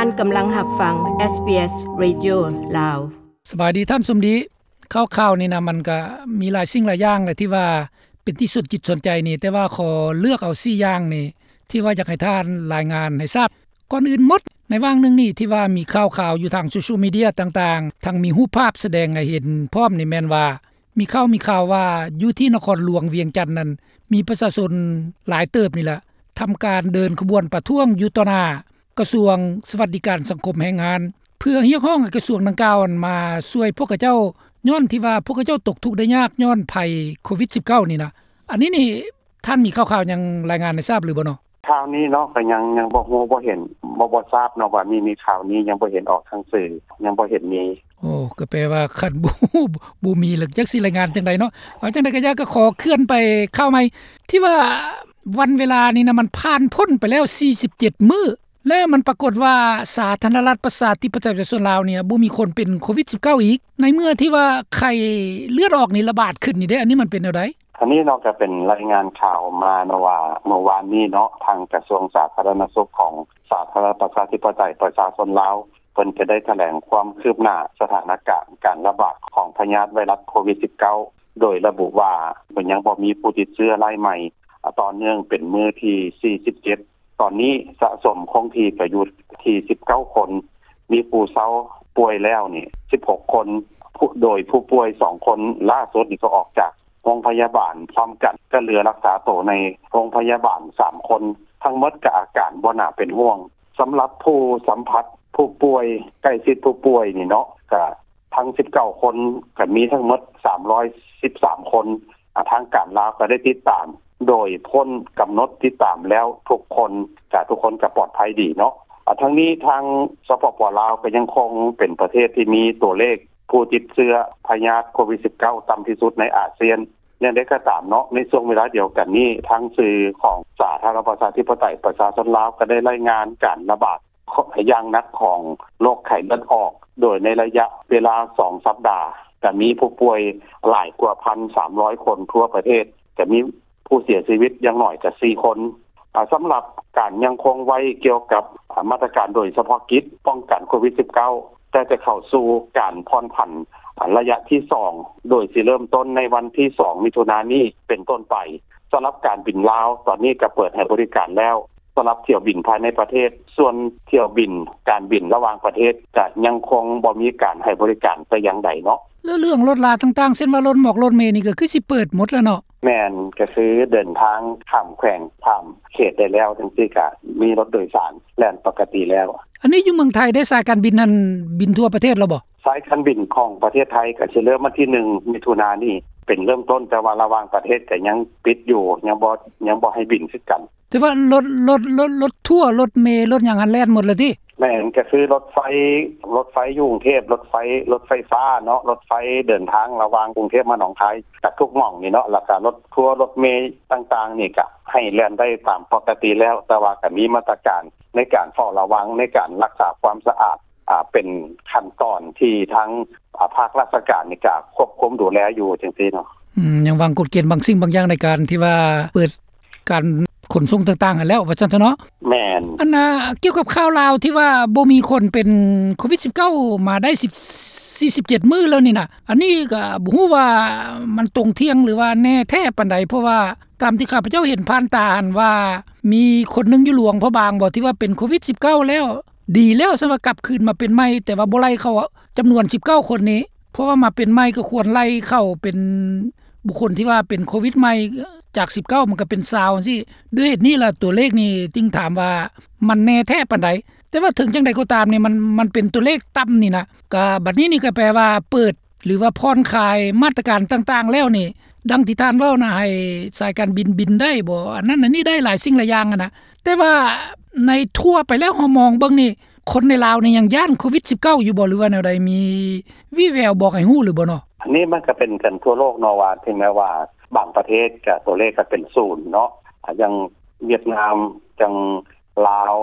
ທ່ານກຳລັງຮັບຟັງ ເອສບີເອສ Radio ລາວ. ສະບາຍດີທ່ານສົມດີ. ຂ່າວໆນີ້ນະ ມັນກະມີຫຼາຍສິ່ງຫຼາຍຢ່າງແຫຼະ ທີ່ວ່າເປັນທີ່ສົນຈິດສົນໃຈນີ້, ແຕ່ວ່າຂໍເລືອກເອົາສີ່ຢ່າງນີ້ ທີ່ວ່າຢາກໃຫ້ທ່ານລາຍງານໃຫ້ຊາບ. ກ່ອນອື່ນໝົດ, ໃນຫວ່າງໜຶ່ງນີ້ທີ່ວ່າມີຂ່າວໆຢູ່ທາງໂຊຊຽວມີເດຍຕ່າງໆ, ທັງມີຮູບພາບສະແດງໃຫ້ເຫັນພ້ອມນີ້ ແມ່ນວ່າ ມີຂ່າວ ມີຂ່າວວ່າຢູ່ທີ່ນະຄອນຫຼວງວຽງຈັນນັ້ນ ມີປະຊາຊົນຫຼາຍເຕີບນີ້ລະ ທຳການເດີນຂະບວນປະທ້ວງຢູ່ຕໍ່ໜ້າກະຊວງສະຫວັດດີການສັງຄົມແຮງງານ ເພື່ອຮຽກຮ້ອງໃຫ້ກະຊວງດັ່ງກ່າວນັ້ນມາຊ່ວຍພວກເຂົາເຈົ້າ ຍ້ອນທີ່ວ່າພວກເຂົາເຈົ້າຕົກທຸກໄດ້ຍາກຍ້ອນໄພໂຄວິດສິບເກົ້ານີ້ນະ. ອັນນີ້ນີ້ ທ່ານມີຂ່າວໆຫຍັງລາຍງານໃຫ້ຊາບຫຼືບໍ່ເນາະ? ຂ່າວນີ້ເນາະ ກໍຍັງ ຍັງບໍ່ຮູ້ບໍ່ເຫັນ ບໍ່ ບໍ່ຊາບເນາະວ່າມີ ມີຂ່າວນີ້ ຍັງບໍ່ເຫັນອອກທາງສື່ ຍັງບໍ່ເຫັນມີ. ໂອ້ ກໍແປວ່າຄັນບໍ່ຮູ້ ບໍ່ມີແລ້ວຈັກຊິລາຍງານຈັ່ງໃດເນາະ. ເອົາຈັ່ງໃດກໍຢ່າ ກໍຂໍເຄື່ອນໄປຂ່າວໃໝ່ ທີ່ວ່າວັນເວລານີ້ນະ ມັນຜ່ານພົ້ນໄປແລ້ວສີ່ສິບເຈັດມື້ ແລ້ວມັນປາກົດວ່າສາທາລະນະລັດປະຊາທິປະໄຕປະຊາຊົນລາວນີ້ ບໍ່ມີຄົນເປັນໂຄວິດສິບເກົ້າອີກ ໃນເມື່ອທີ່ວ່າໄຂ້ເລືອດອອກນີ້ລະບາດຂຶ້ນນີ້ເດ້. ອັນນີ້ມັນເປັນແນວໃດ? ອັນນີ້ເນາະ ກໍເປັນລາຍງານຂ່າວມາເນາະວ່າ ເມື່ອວານນີ້ເນາະ ທາງກະຊວງສາທາລະນະສຸກຂອງສາທາລະນະລັດປະຊາທິປະໄຕປະຊາຊົນລາວ ເພິ່ນກໍໄດ້ຖະແຫຼງຄວາມຄືບໜ້າສະຖານະການການລະບາດຂອງພະຍາດໄວຣັສໂຄວິດສິບເກົ້າ ໂດຍລະບຸວ່າ ເພິ່ນຍັງບໍ່ມີຜູ້ຕິດເຊື້ອລາຍໃໝ່ຕໍ່ເນື່ອງເປັນມື້ທີສີ່ສິບເຈັດ. ຕອນນີ້ສະສົມຄົງທີ່ກໍຢູ່ທີ່ສິບເກົ້າຄົນ, ມີຜູ້ເຊົາປ່ວຍແລ້ວນີ້ສິບຫົກຄົນ, ໂດຍຜູ້ປ່ວຍສອງຄົນລ່າສຸດນີ້ກໍອອກຈາກໂຮງພະຍາບານພ້ອມກັນ ກໍເຫຼືອຮັກສາໂຕໃນໂຮງພະຍາບານສາມຄົນ, ທັງໝົດກໍອາການບໍ່ໜ້າເປັນຫ່ວງ. ສຳລັບຜູ້ສຳຜັດຜູ້ປ່ວຍ ໃກ້ຊິດຜູ້ປ່ວຍນີ້ເນາະ ກໍທັງສິບເກົ້າຄົນ ກໍມີທັງໝົດສາມຮ້ອຍສິບສາມຄົນ. ອາ ທາງການລາວກໍໄດ້ຕິດຕາມ ໂດຍພົ້ນກຳນົດຕິດຕາມແລ້ວທຸກຄົນ ກະທຸກຄົນກະປອດໄພດີເນາະ. ອາ ທັງນີ້ທາງ ສປປ ລາວ ກໍຍັງຄົງເປັນປະເທດທີ່ມີຕົວເລກຜູ້ຕິດເຊື້ອພະຍາດໂຄວິດສິບເກົ້າ ຕ່ຳທີ່ສຸດໃນອາຊຽນ. ຢ່າງໃດກໍຕາມເນາະ ໃນຊ່ວງເວລາດຽວກັນນີ້ ທາງສື່ຂອງສາທາລະນະລັດປະຊາທິປະໄຕປະຊາຊົນລາວ ກໍໄດ້ລາຍງານການລະບາດ ຢ່າງໜັກຂອງໂລກໄຂ້ເລືອດອອກ ໂດຍໃນໄລຍະເວລາສອງສັບດາ ກະມີຜູ້ປ່ວຍຫຼາຍກວ່າພັນສາມຮ້ອຍຄົນທົ່ວປະເທດ, ກະມີຜູ້ເສຍຊີວິດຢ່າງໜ້ອຍກະສີ່ຄົນ. ອາ ສຳລັບການຍັງຄົງໄວ້ກ່ຽວກັບ ອາ ມາດຕະການໂດຍສະເພາະກິດປ້ອງກັນໂຄວິດສິບເກົ້າ ແຕ່ຈະເຂົ້າສູ່ການຜ່ອນຜັນ ອາ ໄລຍະທີສອງ ໂດຍຊິເລີ່ມຕົ້ນໃນວັນທີສອງ ມິຖຸນານີ້ເປັນຕົ້ນໄປ. ສຳລັບການບິນລາວ ຕອນນີ້ກະເປີດໃຫ້ບໍລິການແລ້ວ ສຳລັບຖ້ຽວບິນພາຍໃນປະເທດ, ສ່ວນຖ້ຽວບິນ ການບິນລະຫວ່າງປະເທດ ຈະຍັງຄົງບໍ່ມີການໃຫ້ບໍລິການແຕ່ຢ່າງໃດເນາະ. ແລ້ວເລື່ອງລົດລາຕ່າງໆ ເຊັ່ນວ່າລົດໝອກລົດເມນີ້ ກໍຄືຊິເປີດໝົດແລ້ວເນາະ? ແມ່ນ, ກໍຄືເດີນທາງຂ້າມແຂວງ ຂ້າມເຂດໄດ້ແລ້ວ ຈັ່ງຊີ້ກະມີລົດໂດຍສານແລ່ນປົກກະຕິແລ້ວ. ອັນນີ້ຢູ່ເມືອງໄທເດ້ ສາຍການບິນຫັ້ນບິນທົ່ວປະເທດແລ້ວບໍ່? ສາຍການບິນຂອງປະເທດໄທກໍຊິເລີ່ມວັນທີໜຶ່ງ ມິຖຸນານີ້ເປັນເລີ່ມຕົ້ນ, ແຕ່ວ່າລະຫວ່າງປະເທດກໍຍັງປິດຢູ່, ຍັງບໍ່ ຍັງບໍ່ໃຫ້ບິນຄືກັນ. ແຕ່ວ່າລົດ ລົດ ລົດ ລົດທົວ ລົດເມ ລົດຫຍັງຫັ້ນແລ່ນໝົດແລ້ວຕິ? ແມ່ນ, ກໍຄືລົດໄຟ ລົດໄຟຢູ່ກຸງເທບ, ລົດໄຟ ລົດໄຟຟ້າເນາະ, ລົດໄຟເດີນທາງລະຫວ່າງກຸງເທບມາໜອງຄາຍ ກັບທຸກໝ່ອງນີ້ເນາະ, ແລ້ວກໍລົດທົວ ລົດເມຕ່າງໆນີ້ ກໍໃຫ້ແລ່ນໄດ້ຕາມປົກກະຕິແລ້ວ, ແຕ່ວ່າກໍມີມາດຕະການໃນການເຝົ້າລະວັງ ໃນການຮັກສາຄວາມສະອາດ ອ່າ ເປັນຂັ້ນຕອນທີ່ທາງ ອ່າ ພາກລາຊະການນີ້ກະຄວບຄຸມດູແລຢູ່ຈັ່ງຊີ້ເນາະ. ອືມ ຍັງວາງກົດເກນບາງສິ່ງບາງຢ່າງໃນການທີ່ວ່າເປີດການຂົນສົ່ງຕ່າງໆຫັ້ນແລ້ວ ວ່າຊັ້ນເຖາະເນາະ. ແມ່ນ. ອັນນ່າ ກ່ຽວກັບຂ່າວລາວທີ່ວ່າບໍ່ມີຄົນເປັນໂຄວິດສິບເກົ້າມາໄດ້ສິບ ສີ່ສິບເຈັດມື້ແລ້ວນີ້ນະ, ອັນນີ້ກະບໍ່ຮູ້ວ່າມັນຕົງທ່ຽງ ຫຼືວ່າແນ່ແທ້ປານໃດ, ເພາະວ່າຕາມທີ່ຂ້າພະເຈົ້າເຫັນຜ່ານຕາຫັ້ນວ່າ ມີຄົນໜຶ່ງຢູ່ຫຼວງພະບາງບໍ ທີ່ວ່າເປັນໂຄວິດສິບເກົ້າແລ້ວ ດີແລ້ວ ຊັ້ນວ່າກັບຄືນມາເປັນໃໝ່, ແຕ່ວ່າບໍ່ໄລ່ເຂົ້າຈຳນວນສິບເກົ້າຄົນນີ້, ເພາະວ່າມາເປັນໃໝ່ກໍຄວນໄລ່ເຂົ້າເປັນບຸກຄົນທີ່ວ່າເປັນໂຄວິດໃໝ່ ຈາກສິບເກົ້າມັນກໍເປັນຊາວຈັ່ງຊີ້. ດ້ວຍເຫດນີ້ລະ ຕົວເລກນີ້ຈຶ່ງຖາມວ່າມັນແນ່ແທ້ປານໃດ? ແຕ່ວ່າເຖິງຈັ່ງໃດກໍຕາມນີ້ ມັນ ມັນເປັນຕົວເລກຕ່ຳນີ້ນະ, ກະບັດນີ້ນີ້ກໍແປວ່າເປີດ ຫຼືວ່າຜ່ອນຄາຍມາດຕະການຕ່າງໆແລ້ວນີ້ ດັ່ງທີ່ທ່ານເວົ້ານະ ໃຫ້ສາຍການບິນບິນໄດ້ບໍ ອັນນັ້ນອັນນີ້ໄດ້ ຫຼາຍສິ່ງຫຼາຍຢ່າງຫັ້ນນະ, ແຕ່ວ່າໃນທົ່ວໄປແລ້ວ ເຮົາມອງເບິ່ງນີ້ ຄົນໃນລາວນີ້ຍັງຢ້ານໂຄວິດສິບເກົ້າຢູ່ບໍ ຫຼືວ່າແນວໃດ? ມີວີ່ແວວບອກໃຫ້ຮູ້ຫຼືບໍ່ເນາະ? ອັນນີ້ມັນກໍເປັນກັນທົ່ວໂລກເນາະ ວ່າເຖິງແມ້ວ່າບາງປະເທດກໍຕົວເລກກໍເປັນສູນເນາະ, ຢ່າງຫວຽດນາມ ຈັ່ງລາວ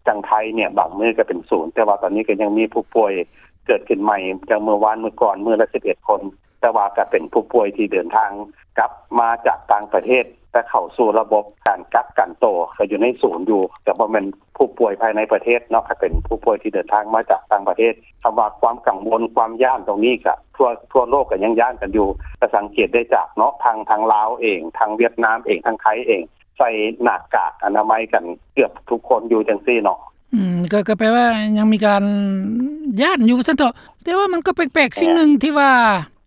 ຈັ່ງໄທເນຍ ບາງມື້ກໍເປັນສູນ, ແຕ່ວ່າຕອນນີ້ກໍຍັງມີຜູ້ປ່ວຍເກີດຂຶ້ນໃໝ່ ຈັ່ງມື້ວານມື້ກ່ອນ ມື້ລະສິບເອັດຄົນ, ແຕ່ວ່າກໍເປັນຜູ້ປ່ວຍທີ່ເດີນທາງກັບມາຈາກຕ່າງປະເທດ ແຕ່ເຂົ້າສູ່ລະບົບການກັກກັນໂຕ ກໍຢູ່ໃນສູນຢູ່, ກໍບໍ່ແມ່ນ ຜູ້ປ່ວຍພາຍໃນປະເທດເນາະ ກໍເປັນຜູ້ປ່ວຍທີ່ເດີນທາງມາຈາກຕ່າງປະເທດ. ຄຳວ່າຄວາມກັງວົນ ຄວາມຢ້ານຕົງນີ້ ກໍທົ່ວ ທົ່ວໂລກກໍຍັງຢ້ານກັນຢູ່. ກໍສັງເກດໄດ້ຈາກເນາະ ທາງ ທາງລາວເອງ ທາງຫວຽດນາມເອງ ທາງໄທເອງ ໃສ່ໜ້າກາກອະນາໄມກັນເກືອບທຸກຄົນຢູ່ຈັ່ງຊີ້ເນາະ. ອືມ ກໍ ກໍແປວ່າຍັງມີການຢ້ານຢູ່ວ່າຊັ້ນເຖາະ. ແຕ່ວ່າມັນກໍແປກໆ ສິ່ງໜຶ່ງທີ່ວ່າ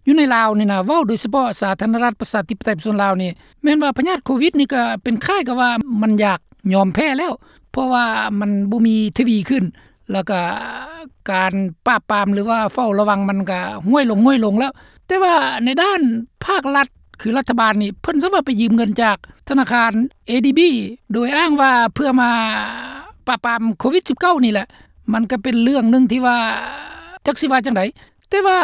ຢູ່ໃນລາວນີ້ນະ ເວົ້າໂດຍສະເພາະສາທາລະນະລັດປະຊາທິປະໄຕປະຊາຊົນລາວນີ້ ແມ່ນວ່າພະຍາດໂຄວິດນີ້ກໍເປັນຄ້າຍກັບວ່າມັນຢາກຍອມແພ້ແລ້ວ ເພາະວ່າມັນບໍ່ມີທະວີຂຶ້ນ ແລ້ວກໍການປາບປາມ ຫຼືວ່າເຝົ້າລະວັງມັນກໍຫ້ວຍລົງ ຫ້ວຍລົງແລ້ວ. ແຕ່ວ່າໃນດ້ານພາກລັດ ຄືລັດຖະບານນີ້ ເພິ່ນສາມາດໄປຢືມເງິນຈາກທະນາຄານ ເອດີບີ ໂດຍອ້າງວ່າເພື່ອມາປາບປາມໂຄວິດສິບເກົ້ານີ້ແຫຼະ. ມັນກໍເປັນເລື່ອງໜຶ່ງທີ່ວ່າຈັກຊິວ່າຈັ່ງໃດ ແຕ່ວ່າ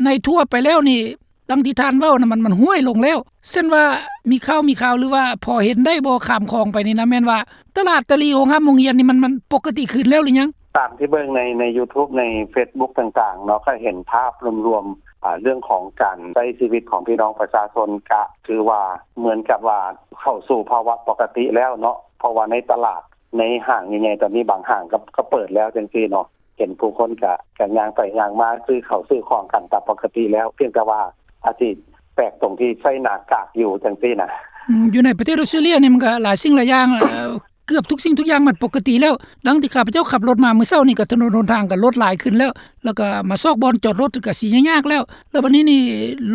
ໃນທົ່ວໄປແລ້ວນີ້ ດັ່ງທີ່ທ່ານເວົ້ານະ ມັນ ມັນຫ້ວຍລົງແລ້ວ. ເຊັ່ນວ່າມີຂ່າວ ມີຂ່າວ ຫຼືວ່າພໍເຫັນໄດ້ບໍ່ ຂ້າມຂອງໄປນີ້ນະ ແມ່ນວ່າຕະຫຼາດຕະຫຼີ່ ໂຮງຮ່ຳໂຮງຮຽນນີ້ ມັນ ມັນປົກກະຕິຄືນແລ້ວຫຼືຍັງ? ຕາມທີ່ເບິ່ງໃນ ໃນຢູທູບ ໃນເຟສບຸກຕ່າງໆເນາະ ກໍເຫັນພາບລວມໆ ອາ ເລື່ອງຂອງການໃຊ້ຊີວິດຂອງພີ່ນ້ອງປະຊາຊົນ ກະຖືວ່າເໝືອນກັບວ່າເຂົ້າສູ່ພາວະປົກກະຕິແລ້ວເນາະ ເພາະວ່າໃນຕະຫຼາດ ໃນຫ້າງໃຫຍ່ໆ ຕອນນີ້ບາງຫ້າງກໍ ກໍເປີດແລ້ວຈັ່ງຊີ້ເນາະ. ເຫັນຜູ້ຄົນກະ ກະຍ່າງໄປຍ່າງມາ ຊື້ເຂົ້າຊື້ຂອງກັນຕາມປົກກະຕິແລ້ວ ພຽງແຕ່ວ່າອາດຊິແປກຕົງທີ່ໃສ່ໜ້າກາກຢູ່ຈັ່ງຊີ້ນະ. ອືມ ຢູ່ໃນປະເທດອອສເຕຣເລຍນີ້ ມັນກະຫຼາຍສິ່ງຫຼາຍຢ່າງ ເອີ ເກືອບທຸກສິ່ງທຸກຢ່າງມັນປົກກະຕິແລ້ວ. ດັ່ງທີ່ຂ້າພະເຈົ້າຂັບລົດມາມື້ເຊົ້ານີ້ ກະຖະໜົນຫົນທາງກະລົດຫຼາຍຂຶ້ນແລ້ວ ແລ້ວກະມາຊອກບ່ອນຈອດລົດກະຊິຍາກໆແລ້ວ. ແລ້ວບັດນີ້ນີ້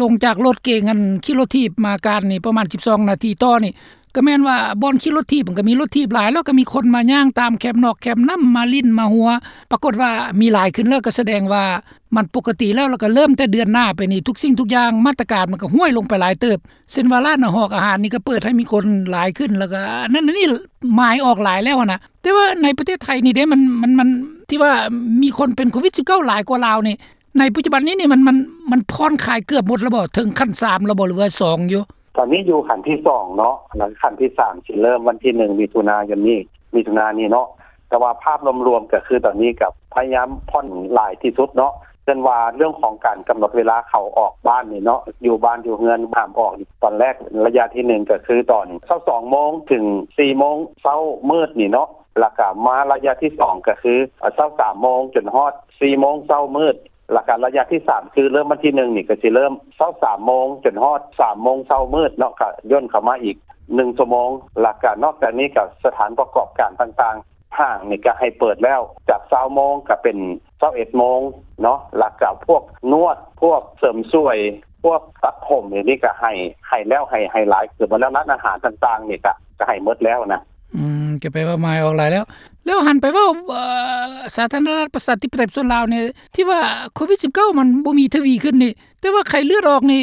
ລົງຈາກລົດເກງ ອັນຂີ່ລົດຖີບມາການນີ້ ປະມານສິບສອງນາທີຕໍ່ນີ້ ກໍແມ່ນວ່າບ່ອນຂີ່ລົດຖີບມັນກໍມີລົດຖີບຫຼາຍ ແລ້ວກໍມີຄົນມາຍ່າງຕາມແຄມນອກແຄມນ້ຳ ມາຫຼິ້ນມາຫົວ ປາກົດວ່າມີຫຼາຍຂຶ້ນ ແລ້ວກໍສະແດງວ່າມັນປົກກະຕິແລ້ວ. ແລ້ວກໍເລີ່ມແຕ່ເດືອນໜ້າໄປນີ້ ທຸກສິ່ງທຸກຢ່າງ ມາດຕະການມັນກໍຫ້ວຍລົງໄປຫຼາຍເຕີບ ເຊັ່ນວ່າຮ້ານອາຫານ ອາຫານນີ້ກໍເປີດໃຫ້ມີຄົນຫຼາຍຂຶ້ນ ແລ້ວກໍອັນນັ້ນອັນນີ້ໝາຍອອກຫຼາຍແລ້ວຫັ້ນນະ. ແຕ່ວ່າໃນປະເທດໄທນີ້ເດ້ ມັນ ມັນ ມັນ ທີ່ວ່າມີຄົນເປັນໂຄວິດສິບເກົ້າຫຼາຍກວ່າລາວນີ້ ໃນປັດຈຸບັນນີ້ນີ້ ມັນ ມັນ ມັນຜ່ອນຄາຍເກືອບໝົດແລ້ວບໍ່? ເຖິງຂັ້ນສາມແລ້ວບໍ່ ຫຼືວ່າສອງຢູ່? ຕອນນີ້ຢູ່ຂັ້ນທີສອງເນາະ ແລ້ວຂັ້ນທີສາມຊິເລີ່ມວັນທີໜຶ່ງ ມິຖຸນາຍົນນີ້ ມິຖຸນານີ້ເນາະ. ແຕ່ວ່າພາບລວມໆ ກໍຄືຕອນນີ້ກໍພະຍາຍາມຜ່ອນຫຼາຍທີ່ສຸດເນາະ. ເຊັ່ນວ່າເລື່ອງຂອງການກຳນົດເວລາເຂົ້າອອກບ້ານນີ້ເນາະ ຢູ່ບ້ານຢູ່ເຮືອນຫ້າມອອກ ຕອນແລກໄລຍະທີໜຶ່ງ ກໍຄືຕອນຊາວສອງໂມງເຖິງສີ່ໂມງເຊົ້າມືດນີ້ເນາະ ແລ້ວກໍມາໄລຍະທີສອງ ກໍຄືຊາວສາມໂມງຈົນຮອດສີ່ໂມງເຊົ້າມືດ ແລ້ວກະໄລຍະທີສາມ ຄືເລີ່ມວັນທີໜຶ່ງນີ້ ກະຊິເລີ່ມຊາວສາມໂມງຈົນຮອດສາມໂມງເຊົ້າມືດເນາະ ກະຢ່ນເຂົ້າມາອີກໜຶ່ງຊົ່ວໂມງ. ແລ້ວກະນອກຈາກນີ້ກະສະຖານປະກອບການຕ່າງໆ ຫ້າງນີ້ກະໃຫ້ເປີດແລ້ວ ຈາກຊາວໂມງກະເປັນຊາວເອັດໂມງເນາະ. ແລ້ວກະພວກນວດ ພວກເສີມສວຍ ພວກຕັດຜົມ ອັນນີ້ກະໃຫ້ ໃຫ້ແລ້ວ ໃຫ້ ໃຫ້ຫຼາຍເກືອບໝົດແລ້ວ. ຮ້ານອາຫານຕ່າງໆນີ້ກະ ກະໃຫ້ໝົດແລ້ວນະ. ອືມ ກໍແປວ່າໝາຍອອກຫຼາຍແລ້ວ. ແລ້ວຫັນໄປເວົ້າ ເອີ ສາທາລະນະລັດປະຊາທິປະໄຕປະຊາຊົນລາວນີ້ ທີ່ວ່າໂຄວິດສິບເກົ້າມັນບໍ່ມີທະວີຂຶ້ນນີ້ ແຕ່ວ່າໄຂ້ເລືອດອອກນີ້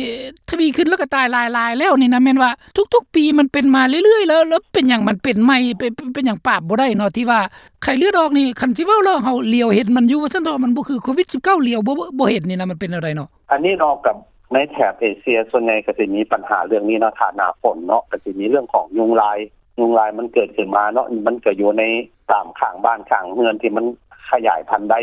ທະວີຂຶ້ນ ແລ້ວກໍຕາຍຫຼາຍໆແລ້ວນີ້ນະ ແມ່ນວ່າທຸກໆປີມັນເປັນມາເລື້ອຍໆ ແລ້ວ ແລ້ວເປັນຫຍັງມັນເປັນໃໝ່ ເປັນ ເປັນຫຍັງປາບບໍ່ໄດ້ເນາະ? ທີ່ວ່າໄຂ້ເລືອດອອກນີ້ ຄັນຊິເວົ້າແລ້ວເຮົາຫຼຽວເຫັນມັນຢູ່ວ່າຊັ້ນເຖາະ ມັນບໍ່ຄືໂຄວິດສິບເກົ້າ ຫຼຽວບໍ່ ບໍ່ ບໍ່ເຫັນນີ້ນະ ມັນເປັນແນວໃດເນາະ? ອັນນີ້ເນາະ ກັບໃນແຖບເອເຊຍສ່ວນໃຫຍ່ກໍຊິມີບັນຫາເລື່ອງນີ້ເນາະ ຖ້າໜ້າຝົນເນາະ ກໍຊິມີເລື່ອງຂອງຍຸງລາຍ ຍຸງລາຍມັນເກີດຂຶ້ນມາເນາະ ມັນກໍຢູ່ໃນຕາມຂ້າງບ້ານຂ້າງເຮືອນທີ່ມັນຂະຫຍາຍພັນໄດ້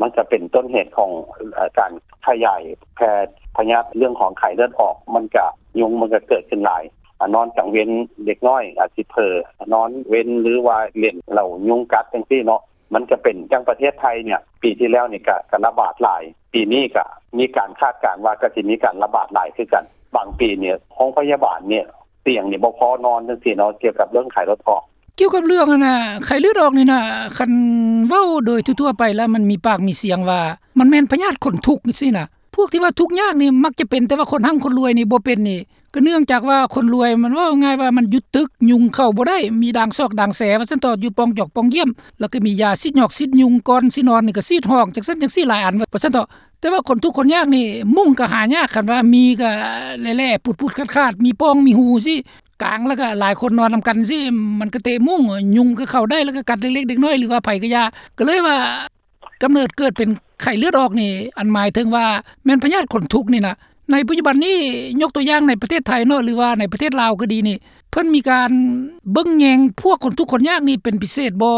ມັນກໍເປັນຕົ້ນເຫດຂອງ ເອີ ການຂະຫຍາຍແຜ່ພະຍາດເລື່ອງຂອງໄຂ້ເລືອດອອກ ມັນກໍ ຍຸງມັນກໍເກີດຂຶ້ນຫຼາຍ ອາ ນອນກາງເວັນເດັກນ້ອຍອາດຊິເຜີ ນອນເວັນ ຫຼືວ່າຫຼິ້ນແລ້ວຍຸງກັດຈັ່ງຊີ້ເນາະ ມັນກໍເປັນ. ຢ່າງປະເທດໄທນີ້ ປີທີ່ແລ້ວນີ້ກໍ ກໍລະບາດຫຼາຍ ປີນີ້ກໍມີການຄາດການວ່າກໍຊິມີການລະບາດຫຼາຍຄືກັນ. ບາງປີນີ້ໂຮງພະຍາບານນີ້ ຕຽງນີ້ບໍ່ພໍນອນຈັ່ງຊີ້ເນາະ ກ່ຽວກັບເລື່ອງໄຂ້ເລືອດອອກ. ກ່ຽວກັບເລື່ອງອັນນ່າ ໄຂ້ເລືອດອອກນີ້ນະ ຄັນເວົ້າໂດຍທົ່ວໆໄປແລ້ວ ມັນມີປາກມີສຽງວ່າ ມັນແມ່ນພະຍາດຄົນທຸກຈັ່ງຊີ້ນະ. ພວກທີ່ວ່າທຸກຍາກນີ້ມັກຈະເປັນ ແຕ່ວ່າຄົນຮັ່ງຄົນລວຍນີ້ບໍ່ເປັນນີ້ ກໍເນື່ອງຈາກວ່າຄົນລວຍ ມັນເວົ້າງ່າຍວ່າມັນຢຸດຕຶກ ຍຸງເຂົ້າບໍ່ໄດ້ ມີດາງຊອກດາງແສວ່າຊັ້ນເຖາະ ຢູ່ປ່ອງຈອກປ່ອງຢ້ຽມ ແລ້ວກໍມີຢາສີດຫຍອກສີດຍຸງ ກ່ອນຊິນອນນີ້ກໍສີດຫ້ອງ ຈັ່ງຊັ້ນຈັ່ງຊີ້ ຫຼາຍອັນວ່າຊັ້ນເຖາະ. ແຕ່ວ່າຄົນທຸກຄົນຍາກນີ້ ມຸ້ງກໍຫາຍາກ ຄັນວ່າມີກໍແຫຼະໆ ປຸດໆຂາດໆ ມີປ່ອງມີຮູຊີ້ ກາງ ແລ້ວກໍຫຼາຍຄົນນອນນຳກັນຊີ້ ມັນກໍເຕະມຸ້ງ ຍຸງກໍເຂົ້າໄດ້ ແລ້ວກໍກັດເລັກໆເດັກນ້ອຍ ຫຼືວ່າໃຜກໍຢ່າ. ກໍເລີຍວ່າກຳເນີດເກີດເປັນໄຂ້ເລືອດອອກນີ້ ອັນໝາຍເຖິງວ່າແມ່ນພະຍາດຂົນທຸກນີ້ນະ ໃນປັດຈຸບັນນີ້ ຍົກຕົວຢ່າງໃນປະເທດໄທເນາະ ຫຼືວ່າໃນປະເທດລາວກໍດີນີ້ ເພິ່ນມີການເບິ່ງແຍງພວກຄົນທຸກຄົນຍາກນີ້ເປັນພິເສດບໍ່?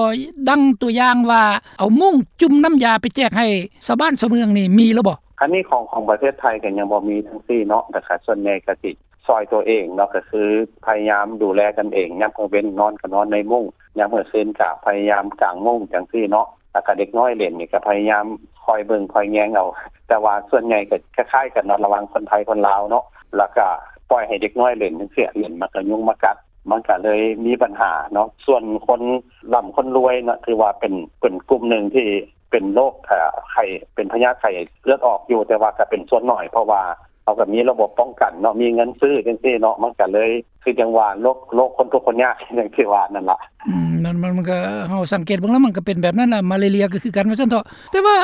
ດັ່ງຕົວຢ່າງວ່າ ເອົາມຸ້ງຈຸ່ມນ້ຳຢາໄປແຈກໃຫ້ຊາວບ້ານຊາວເມືອງນີ້ ມີແລ້ວບໍ່? ອັນນີ້ຂອງ ຂອງປະເທດໄທກໍຍັງບໍ່ມີທັງຊີ້ເນາະ ແຕ່ກໍສ່ວນໃຫຍ່ກໍຊິ ຊ່ອຍຕົວເອງເນາະ ກໍຄືພະຍາຍາມດູແລກັນເອງ ຍາມກາງເວັນນອນກໍນອນໃນມຸ້ງ ຍາມກາງຄືນກໍພະຍາຍາມກາງມຸ້ງຈັ່ງຊີ້ເນາະ ແລ້ວກໍເດັກນ້ອຍເຫຼັ້ນນີ້ກໍພະຍາຍາມຄອຍເບິ່ງຄອຍແຍງເອົາ ແຕ່ວ່າສ່ວນໃຫຍ່ກໍຄ້າຍໆກັນເນາະ ລະຫວ່າງຄົນໄທຄົນລາວເນາະ ແລ້ວກໍປ່ອຍໃຫ້ເດັກນ້ອຍເຫຼັ້ນຈັ່ງຊີ້ ເຫຼັ້ນມັນກໍຍຸງມາກັດ ມັນກໍເລີຍມີບັນຫາເນາະ ສ່ວນຄົນລ່ຳຄົນລວຍເນາະ ຖືວ່າເປັນ ເປັນກຸ່ມໜຶ່ງທີ່ເປັນໂລກ ເອີ ໄຂ້ ເປັນພະຍາດໄຂ້ເລືອດອອກຢູ່ ແຕ່ວ່າກໍເປັນສ່ວນໜ້ອຍ ເພາະວ່າເຮົາກໍມີລະບົບປ້ອງກັນເນາະ ມີເງິນຊື້ຈັ່ງຊີ້ເນາະ ມັນກໍເລີຍຄືຈັ່ງວ່າໂລກ ໂລກຄົນທຸກຄົນຍາກ ຢ່າງທີ່ວ່ານັ້ນລະ. ອືມ ນັ້ນມັນ ມັນກໍ ເຮົາສັງເກດເບິ່ງແລ້ວ ມັນກໍເປັນແບບນັ້ນລະ ມາເລເລຍກໍຄືກັນວ່າຊັ້ນເຖາະ ແຕ່ວ່າ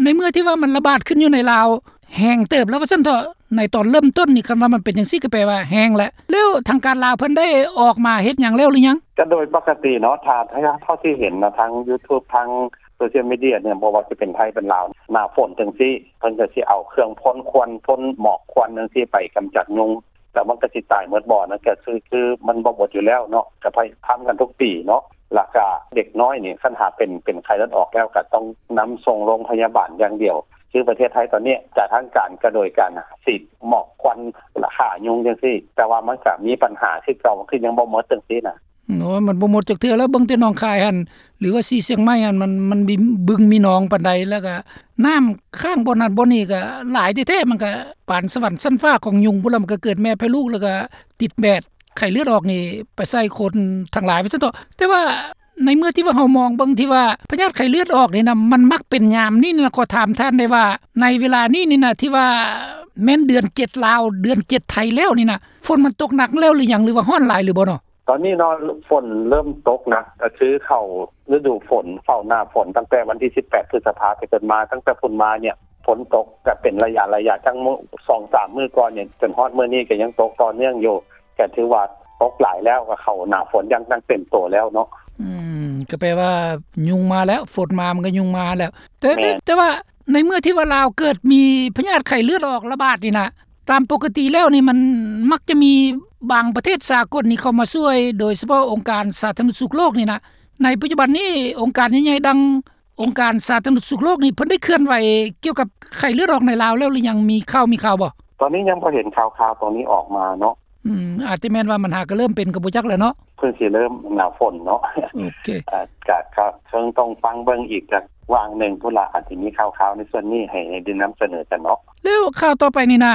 ໃນເມື່ອທີ່ວ່າມັນລະບາດຂຶ້ນຢູ່ໃນລາວ ແຮງເຕີບແລ້ວວ່າຊັ້ນເຖາະ ໃນຕອນເລີ່ມຕົ້ນນີ້ ຄັນວ່າມັນເປັນຈັ່ງຊີ້ກໍແປວ່າແຮງແຫຼະ ແລ້ວທາງການລາວເພິ່ນໄດ້ອອກມາເຮັດຫຍັງແລ້ວຫຼືຍັງ? ກໍໂດຍປົກກະຕິເນາະ ຖ້າ ຖ້າເທົ່າທີ່ເຫັນເນາະ ທາງຢູທູບ ທາງໂຊຊຽວມີເດຍເນາະ ບໍ່ວ່າຊິເປັນໄທເປັນລາວ ໜ້າຝົນຈັ່ງຊີ້ ເພິ່ນກໍຊິເອົາເຄື່ອງພົ່ນຄວັນ ພົ່ນໝອກຄວັນຈັ່ງຊີ້ໄປກຳຈັດຍຸງ ແລ້ວມັນກໍຊິຕາຍໝົດບໍ່ ນັ້ນກໍຄື ຄືມັນບໍ່ໝົດຢູ່ແລ້ວເນາະ ກໍພະຍາຍາມທຳກັນທຸກປີເນາະ ແລ້ວກໍເດັກນ້ອຍນີ້ ຄັນຫາເປັນ ເປັນໄຂ້ເລືອດອອກແລ້ວ ກໍຕ້ອງນຳສົ່ງໂຮງພະຍາບານຢ່າງດຽວ ຄືປະເທດໄທຕອນນີ້ ຈາກທາງການກໍໂດຍການສີດໝອກຄວັນ ລະຂ້າຍຸງຈັ່ງຊີ້ ແຕ່ວ່າມັນກໍມີບັນຫາຄືເກົ່າ ມັນຄືຍັງບໍ່ໝົດຈັ່ງຊີ້ນະ. ໂອ້ຍ ມັນບໍ່ໝົດຈັກເທື່ອແລ້ວ ເບິ່ງແຕ່ໜອງຄາຍຫັ້ນ ຫຼືວ່າສີຊຽງໃໝ່ຫັ້ນ ມັນ ມັນມີບຶງມີໜອງປານໃດ ແລ້ວກໍນ້ຳຄ້າງບ່ອນນັ້ນບ່ອນນີ້ກໍຫຼາຍແທ້ໆ ມັນກໍປານສະຫວັນຊັ້ນຟ້າຂອງຍຸງພຸ້ນລະ ມັນກໍເກີດແມ່ແຜ່ລູກ ແລ້ວກໍຕິດແບດໄຂ້ເລືອດອອກນີ້ໄປໃສ່ຄົນທັງຫຼາຍວ່າຊັ້ນເຖາະ ແຕ່ວ່າ ໃນເມື່ອທີ່ວ່າເຮົາມອງເບິ່ງທີ່ວ່າພະຍາດໄຂ້ເລືອດອອກນີ້ນະ ມັນມັກເປັນຍາມນີ້ນະ ຂໍຖາມທ່ານໄດ້ວ່າ ໃນເວລານີ້ນີ້ນະ ທີ່ວ່າແມ່ນເດືອນເຈັດລາວ ເດືອນເຈັດໄທແລ້ວນີ້ນະ ຝົນມັນຕົກໜັກແລ້ວຫຼືຍັງ ຫຼືວ່າຮ້ອນຫຼາຍຫຼືບໍ່ເນາະ? ຕອນນີ້ເນາະ ຝົນເລີ່ມຕົກໜັກ ກໍຄືເຂົ້າລະດູຝົນ ເຂົ້າໜ້າຝົນ ຕັ້ງແຕ່ວັນທີສິບແປດ ພຶດສະພາ ເປັນຕົ້ນມາ ຕັ້ງແຕ່ພຸ້ນມານີ້ ຝົນຕົກກໍເປັນໄລຍະໆ ທັງມື້ ສອງສາມມື້ກ່ອນນີ້ ຈົນຮອດມື້ນີ້ກໍຍັງຕົກຕໍ່ເນື່ອງຢູ່ ກໍຖືວ່າຕົກຫຼາຍແລ້ວ ກໍເຂົ້າໜ້າຝົນຢ່າງ ຢ່າງເຕັມໂຕແລ້ວເນາະ. ອືມ ກໍແປວ່າຍຸງມາແລ້ວ ຝົນມາມັນກໍຍຸງມາແລ້ວ ແຕ່ ແຕ່ ແຕ່ວ່າໃນເມື່ອທີ່ວ່າລາວເກີດມີພະຍາດໄຂ້ເລືອດອອກລະບາດນີ້ນະ ຕາມປົກກະຕິແລ້ວນີ້ມັນມັກຈະມີບາງປະເທດສາກົນນີ້ເຂົ້າມາຊ່ວຍ ໂດຍສະເພາະອົງການສາທາລະນະສຸກໂລກນີ້ນະ ໃນປັດຈຸບັນນີ້ອົງການໃຫຍ່ໆ ດັ່ງ ອົງການສາທາລະນະສຸກໂລກນີ້ ເພິ່ນໄດ້ເຄື່ອນໄຫວກ່ຽວກັບໄຂ້ເລືອດອອກໃນລາວແລ້ວຫຼືຍັງ? ມີຂ່າວ ມີຂ່າວບໍ່? ຕອນນີ້ຍັງບໍ່ເຫັນຂ່າວໆຕົວນີ້ອອກມາເນາະ. ອືມ ອາດຈະແມ່ນວ່າມັນຫາກະເລີ່ມເປັນກໍບໍ່ຈັກແຫຼະເນາະ. ເພິ່ນຊິເລີ່ມໜ້າຝົນເນາະ. ໂອເຄ ອາ ກະ ກະເຊິ່ງຕ້ອງຟັງເບິ່ງອີກຈັກຫວ່າງໜຶ່ງພຸ້ນລະ ອາດຈະມີຂ່າວໆໃນສ່ວນນີ້ໃຫ້ ໃຫ້ໄດ້ນຳສະເໜີກັນເນາະ. ແລ້ວຂ່າວຕໍ່ໄປນີ້ນະ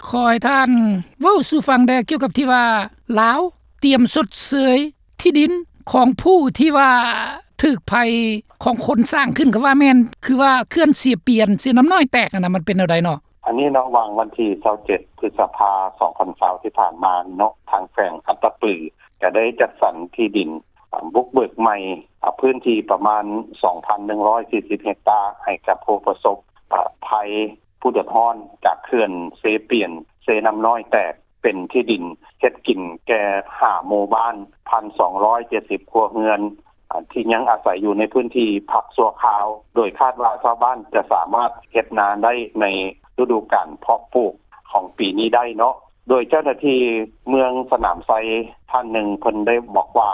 ຂໍໃຫ້ທ່ານເວົ້າສູ່ຟັງແດ່ ກ່ຽວກັບທີ່ວ່າລາວຕຽມຊົດເຊີຍ ທີ່ດິນຂອງຜູ້ທີ່ວ່າຖືກໄພຂອງຄົນສ້າງຂຶ້ນກໍວ່າແມ່ນ ຄືວ່າເຂື່ອນເຊປຽນ ເຊນ້ຳນ້ອຍແຕກຫັ້ນນະ ມັນເປັນແນວໃດເນາະ? ອັນນີ້ເນາະ ຫວ່າງວັນທີຊາວເຈັດ ພຶດສະພາ ສອງພັນຊາວ ທີ່ຜ່ານມານີ້ເນາະ ທາງແຂວງອັດຕະປືກໍໄດ້ຈັດສັນທີ່ດິນ ອາ ບຸກເບີກໃໝ່ ອາ ພື້ນທີ່ປະມານ ສອງພັນໜຶ່ງຮ້ອຍສີ່ສິບເຮັກຕາ ໃຫ້ກັບຜູ້ປະສົບ ອາ ໄພ ຜູ້ເດືອດຮ້ອນຈາກເຂື່ອນເຊປຽນ ເຊນ້ຳນ້ອຍແຕກ ເປັນທີ່ດິນເຮັດກິນແກ່ຫ້າໝູ່ບ້ານ ພັນສອງຮ້ອຍເຈັດສິບຄົວເຮືອນ ທີ່ຍັງອາໄສຢູ່ໃນພື້ນທີ່ພັກຊົ່ວຄາວ ໂດຍຄາດວ່າຊາວບ້ານຈະສາມາດເຮັດນາໄດ້ໃນລະດູການເພາະປູກຂອງປີນີ້ໄດ້ເນາະ. ໂດຍເຈົ້າໜ້າທີ່ເມືອງສະໜາມໄຊທ່ານໜຶ່ງ ເພິ່ນໄດ້ບອກວ່າ